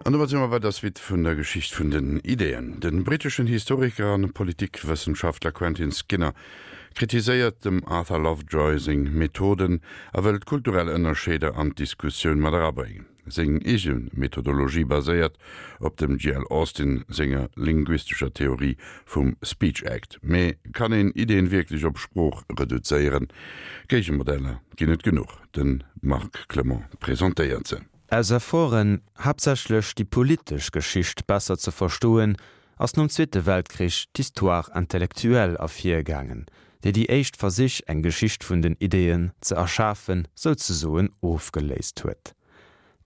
An domat si mer bei der Suite vun der Geschicht vun den Ideeën. De britteschen Historiker an Politikwëssenschaftler Quentin Skinner kritiséiert dem Arthur Lovejoy seng Methoden a wëllt kulturell Ënnerscheeder an d'Diskussioun mat erabréngen. Seng eege Methodologie baséiert op dem GL. Austin senger linguistescher Theorie vum Speech Act. Mee kann een Ideeën wierklech op Sprooch reduzéieren? Géigemodeller ginn et genuch, de Marc Clement presentéiert se. Aus Efforten, haaptsächlech déi politesch Geschicht besser ze verstoen, ass nom Zweete Weltkrich d'Histoire intellectuelle ervirgaangen, déi déi éischt Versich, eng Geschicht vun den Ideeën ze erschafen, souzesoen ofgeléist huet.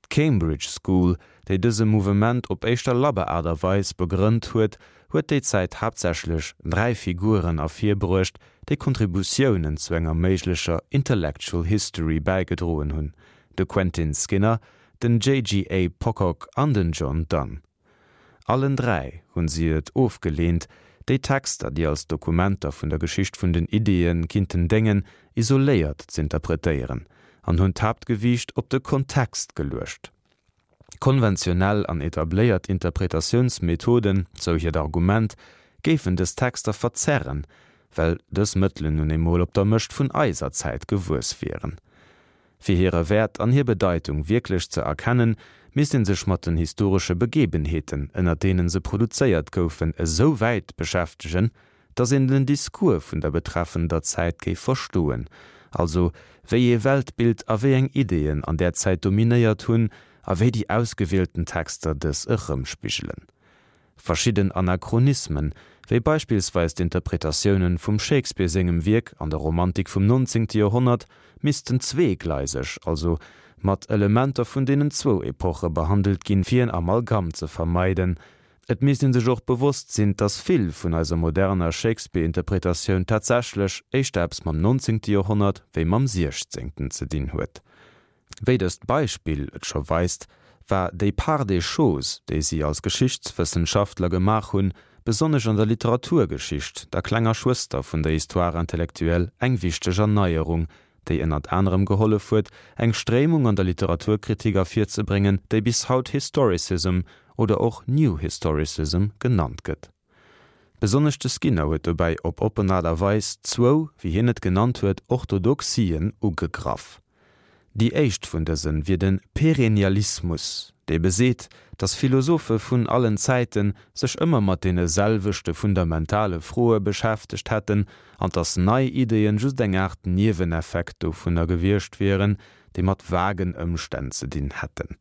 D'Cambridge School, déi dëse Mouvement op éischter labber Aart a Weis begrënnt huet, huet déi Zäit haaptsächlech 3 Figuren ervirbruecht, déi Kontributiounen zu enger méiglecher Intellectual History bäigedroen hunn, de Quentin Skinner, den JGA. Pocock an den John Donne. Allen 3 hunn si et ofgeleent, déi Texter, déi als Dokumenter vun der Geschicht vun den Ideeë kinnten déngen, isoléiert z'interpretéieren an hunn d'Haaptgewiicht op de Kontext geluecht. Konventionell an etabléiert Interpretatiounsmethoden, sou hiert Argument, géifen dës Texter verzerren, well dës Mëttelen nun emol op der Mëscht vun eiser Zäit gewuess wieren. Fir hire Wäert an hir Bedeitung wierklech ze erkennen, misst ee sech mat den historesche Begebenheeten, ënner deene se produzéiert goufen, esou wäit beschäftegen, datt een den Discours vun der betreffender Zäit géif verstoen, also wéi ee Weltbild a wéi eng Ideeën an där Zäit dominéiert hunn a wéi déi ausgewielten Texter dës erëmspigelen. Verschidden Anachronismen, wéi beispillsweis d'Interpretatiounen vum Shakespeare sengem Wierk an der Romantik vum 19. Joerhonnert, missten zweegleiseg, also mat Elementer vun deenen zwou Epoche behandelt ginn, fir en Amalgam ze vermeiden. Et misst ee sech och bewosst sinn, dass vill vun eiser moderner Shakespeare-Interpretatioun tatsächlech éischter eppes mam 19. Joerhonnert wéi mam 16. ze dinn huet. Wéi dëst Beispill et scho weist, war déi Part des choses, déi si als Geschichtswëssenschaftler gemaach hunn, besonnesch an der Literaturgeschicht, der klenger Schwëster vun der Histoire intellectuelle, eng wichteg Erneierung, déi ënnert anerem gehollef huet, eng Stréimung an der Literaturkritik ervirzebréngen, déi bis haut Historicism oder och New Historicism genannt gëtt. Besonnesch de Skinner huet dobäi op oppen Aart a Weis zwou, wéi hien et genannt huet, Orthodoxien ugegraff. Déi éischt vun dëse wier de Perennialismus, dee beseet, datt Philosophe vun allen Zäite sech ëmmer mat deene selwechte fundamentale Froe beschäftegt hätten an datt nei Ideeën just eng Aart Nieweneffekt dovunner gewiescht wieren, déi mat vagen Ëmstänn ze dinn hätten.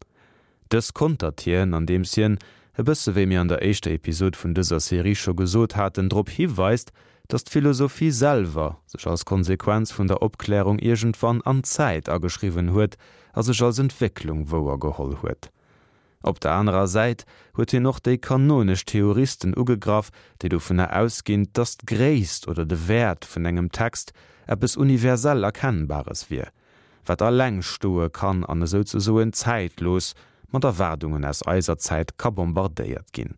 Dës kontert hien, andeems hien, e bësse wéi mir an der éischter Episod vun dëser Serie scho gesot haten, drop hiweist, datt d'Philosophie selwer sech als Konsequenz vun der Opklärung iergendwann an d'Zäit ageschriwwen huet a sech als Entwécklung wouergeholl huet. Op der anerer Säit huet hien och déi kanonesch Theoristen ugegraff, déi dovunner ausginn, datt d'Gréisst oder de Wäert vun engem Text eppes universell Erkennbares wier. wat alleng stoe kann an esouzesoen zäitlos mat Erwaardungen aus eiser Zäit ka bombardéiert ginn.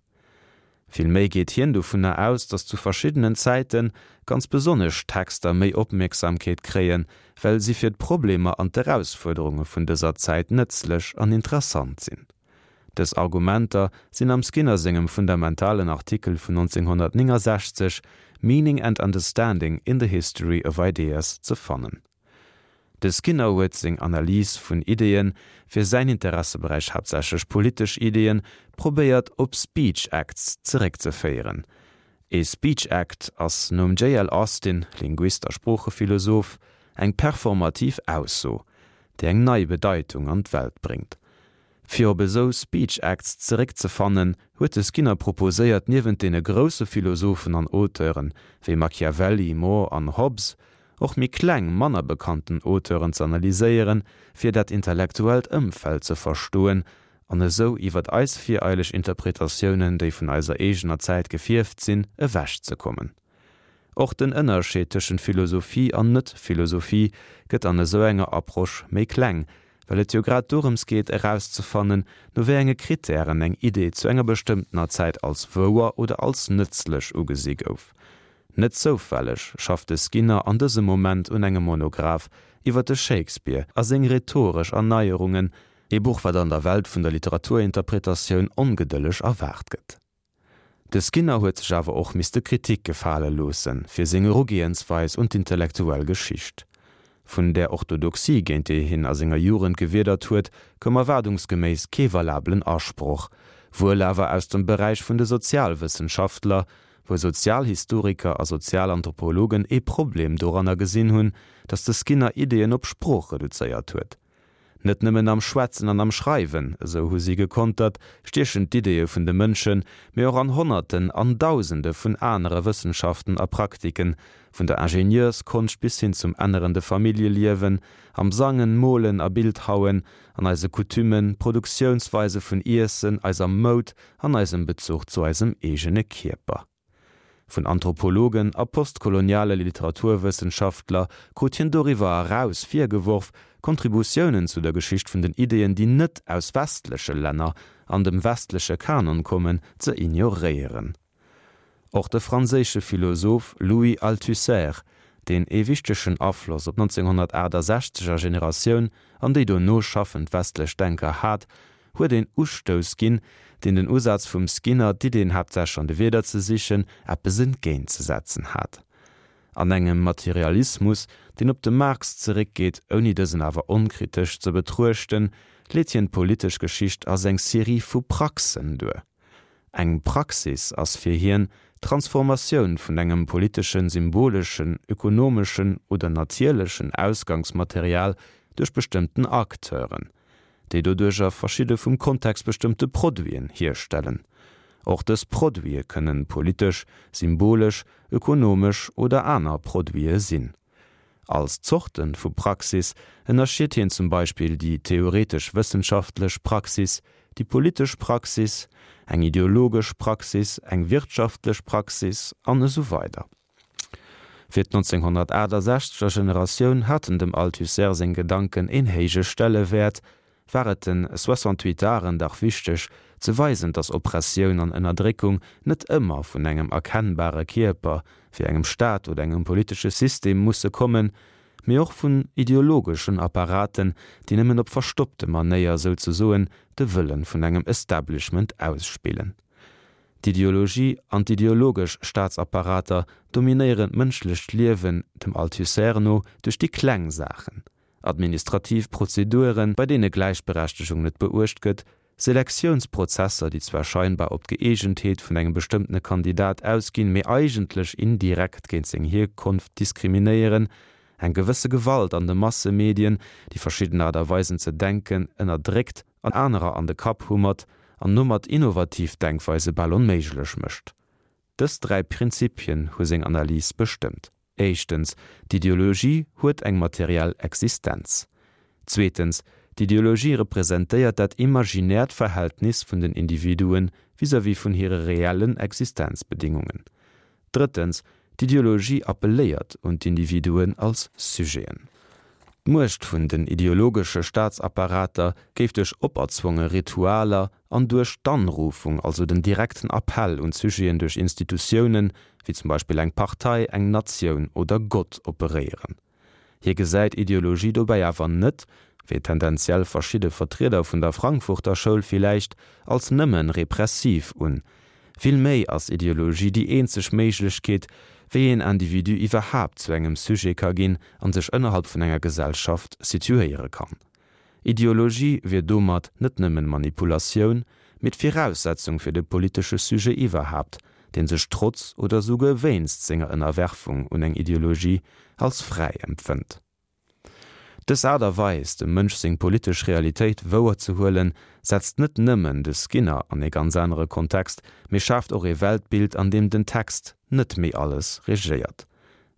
Villméi geet hien dovunner aus, datt zu verschiddenen Zäite ganz besonnesch Texter méi Opmierksamkeet kréien, well si fir d'Problemer an d'Erausfuerderunge vun dëser Zäit nëtzlech an interessant sinn. Dës Argumenter sinn am Skinner sengem fundamentalen Artikel vun 1969 Meaning and Understanding in the History of Ideas ze fannen. De Skinner huet seng Analys vun Ideeën, fir säin Interesseberäich haaptsächlech politesch Ideeën, probéiert op Speech Acts zeréckzeféieren. Ee Speech Act ass nom JL. Austin, Linguist a Sproochephilosoph, eng performativ Ausso, déi eng nei Bedeitung an d'Welt bréngt. Fir op esou Speech Acts zeréckzefannen, huet de Skinner proposéiert, niewent deene grousse Philosophen an Auteuren, wéi Machiavelli, More an Hobbes, och méi kleng, manner bekannten Auteuren z'analyséieren, fir dat intellektuellt Ëmfeld ze verstoen an esou iwwert eis vireileg Interpretatiounen, déi vun eiser eegener Zäit gefierft sinn, ewechzekommen. Och den Ënnerscheed tëschent Philosophie an Net-Philosophie gëtt an esou enger Approche méi kleng, well et jo grad dorëms geet erauszefannen, no wéi enge Krittären eng Idee zu enger bestëmmtener Zäit als wouer oder als nëtzlech ugesi gouf. Net zoufälleg schafft de Skinner an dësem Moment un engem Monograph iwwer de Shakespeare a seng rhetoresch Erneierungen. Ee Buch, wat an der Welt vun der Literaturinterpretatioun ongedëlleg erwaart gëtt. De Skinner huet sech awer och misste Kritik gefale loosse fir seng Erugehensweis un d'intellektuell Geschicht. Vun där Orthodoxie, géint déi hien a senger Jugend gewiedert huet, koum erwaardungsgeméiss kee valabelen Asproch, wuel awer aus dem Beräich vun de Sozialwëssenschaftler, wou Sozialhistoriker a Sozialanthropologen ee Problem doranner gesinn hunn, datt de Skinner Ideeën op Sprooch reduzéiert huet. Net nëmmen am Schwätzen an am Schreiwen, esou hu si gekontert, stiechen d'Ideeë vun de Mënschen, mee och an Honnerten an Dausende vun anere Wëssenschaften a Praktiken, vun der Ingenieursskonscht bis hin zum ännerende Familljeliewen, am Sangen, Molen a Bildhauen, an eise Coutumen, Produktiounsweise vun Iessen, eiser Moud an eisem Bezuch zu eisem eegene Kierper. Vun Anthropologen a postkoloniale Literaturwëssenschaftler krut hien doriwwer eraus virgeworf, Kontributiounen zu der Geschicht vun den Ideeën, déi net aus westleche Länner an dem westleche Kanon kommen, ze ignoréieren. Och de franséische Philosoph Louis Althusser, deen ee wichtegen Afloss op d'Nonzénghonnertaachtasechzeger Generatioun an déi dono schaffend westlech Denker hat, huet een Ustouss ginn, deen den Usaz vum Skinner, d'Iddeen haaptsächlech an de Wierder ze sichen, eppes entgéintzesetzen hat. An engem Materialismus, deen op de Marx zeréckgeet, ouni dësen awer onkritesch ze betruechten, leet hien d'politesch Geschicht als eng Serie vu Praxen duer. Eng Praxis ass fir hien d'Transformatioun vun engem politeschen, symboleschen, ökonomeschen oder natierlechen Ausgangsmaterial duerch bestëmmten Acteuren, déi doduercher verschidde vum Kontext bestëmmte Produiten hierstellen. Och dës Produite kënnen politesch, symbolesch, ökonomesch oder aner Produite sinn. Als Zorte vu Praxis ënnerscheet hien zum Beispill déi theoretesch-wëssenschaftlech Praxis, déi politesch Praxis, eng ideologesch Praxis, eng wirtschaftlech Praxis an esou weider. Fir d'1968 er Generatioun haten dem Althusser seng Gedanken een héije Stellewäert, war et den Soixante-huitaren dach wichteg, ze weisen, datt Oppressioun an Ënnerdréckung net ëmmer vun engem erkennbare Kierper, wéi engem Staat oder engem politesche System, musse kommen, mee och vun ideologeschen Apparaten, déi nëmmen op verstoppte Manéier souzesoen de Wëlle vun engem Establishment ausspillen. D'Ideologie an d'ideologesch Staatsapparater dominéieren d'mënschlecht Liewen, dem Althusser no, duerch déi kleng Saachen, administrativ Prozeduren, bei deene Gläichberechtegung net beuecht gëtt, Selektiounsprozesser, déi zwar scheinbar op d'Gëeegentheet vun engem bestëmmtene Kandidat ausginn, mee eigentlech indirekt géint seng Hierkonft diskriminéieren, eng gewësse Gewalt an de Massemedien, déi verschidden Aart a Weisen ze denken ënnerdréckt an anerer an de Kapp hummert an domat innovativ Denkweise bal onméiglech mécht. Dës 3 Prinzipien hu seng Analys bestëmmt, Éischtens, d'Ideologie huet eng materiell Existenz. Zweetens, d'Ideologie representéiert dat imaginäert Verhältnis vun den Individuen vis-à-vis vun hire reellen Existenzbedingungen. Drëttens, d'Ideologie appelléiert un d'Individuen als Sujeten. D'Muecht vun den ideologesche Staatsapparater géif duerch operzwonge Ritualer an duerch d'Anrufung, also den direkten Appell un d'Sujeten duerch Institutiounen, wéi zum Beispill eng Partei, eng Natioun oder Gott, operéieren. Hie gesäit Ideologie dobäi awer net, wéi tendenziell verschidde Vertrieder vun der Frankfurter Schoul villäicht, als nëmme repressiv un. Vill méi ass Ideologie déi eenzeg Méiglechkeet, wéi een Individu iwwerhaapt zu engem Sujet ka ginn an sech ënnerhalb vun enger Gesellschaft situéiere kann. Ideologie wier domat net nëmmen Manipulatioun, mee d'Viraussetzung fir de politesche Sujet iwwerhaapt, deen sech trotz oder souguer wéinst senger Ënnerwerfung un eng Ideologie als fräi empfënnt. Dës Aart a Weis, dem Mënsch seng politesch Realitéit wouer ze huelen, setzt net nëmmen de Skinner an ee ganz anere Kontext, mee schaaft och ee Weltbild, an deem den Text net méi alles regéiert.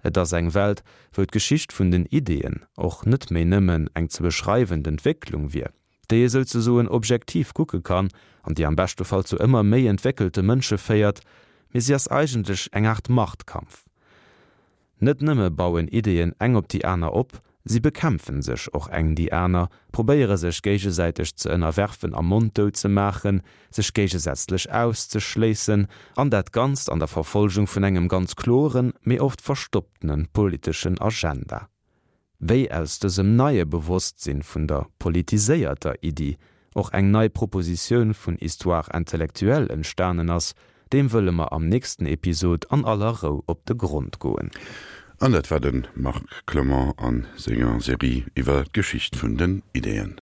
Et ass eng Welt, wou d'Geschicht vun den Ideeën och net méi nëmmen eng ze beschreiwend Entwécklung wier, déi ee souzesoen objektiv kucke kann an déi am beschte Fall zu ëmmer méi entwéckelte Mënsche féiert, mee si ass eigentlech eng Aart Machtkampf. Net nëmme bauen Ideeën eng op déi aner op, si bekämpfen sech och eng déi aner, probéiere sech géigesäiteg ze ënnerwerfen a monddout ze maachen, sech géigesätzlech auszeschléissen, an dat Ganzt an der Verfolgung vun engem ganz kloren, mee oft verstopptene politeschen Agenda. Wéi aus dësem neie Bewosstsinn vun der politiséierter Iddi och eng nei Propositioun vun Histoire intellectuelle entstanen ass, deem wëlle mer am nächsten Episod an aller Rou op de Grond goen. An dat war de Marc Clement a senger Serie iwwer d'Geschicht vun den Ideeën.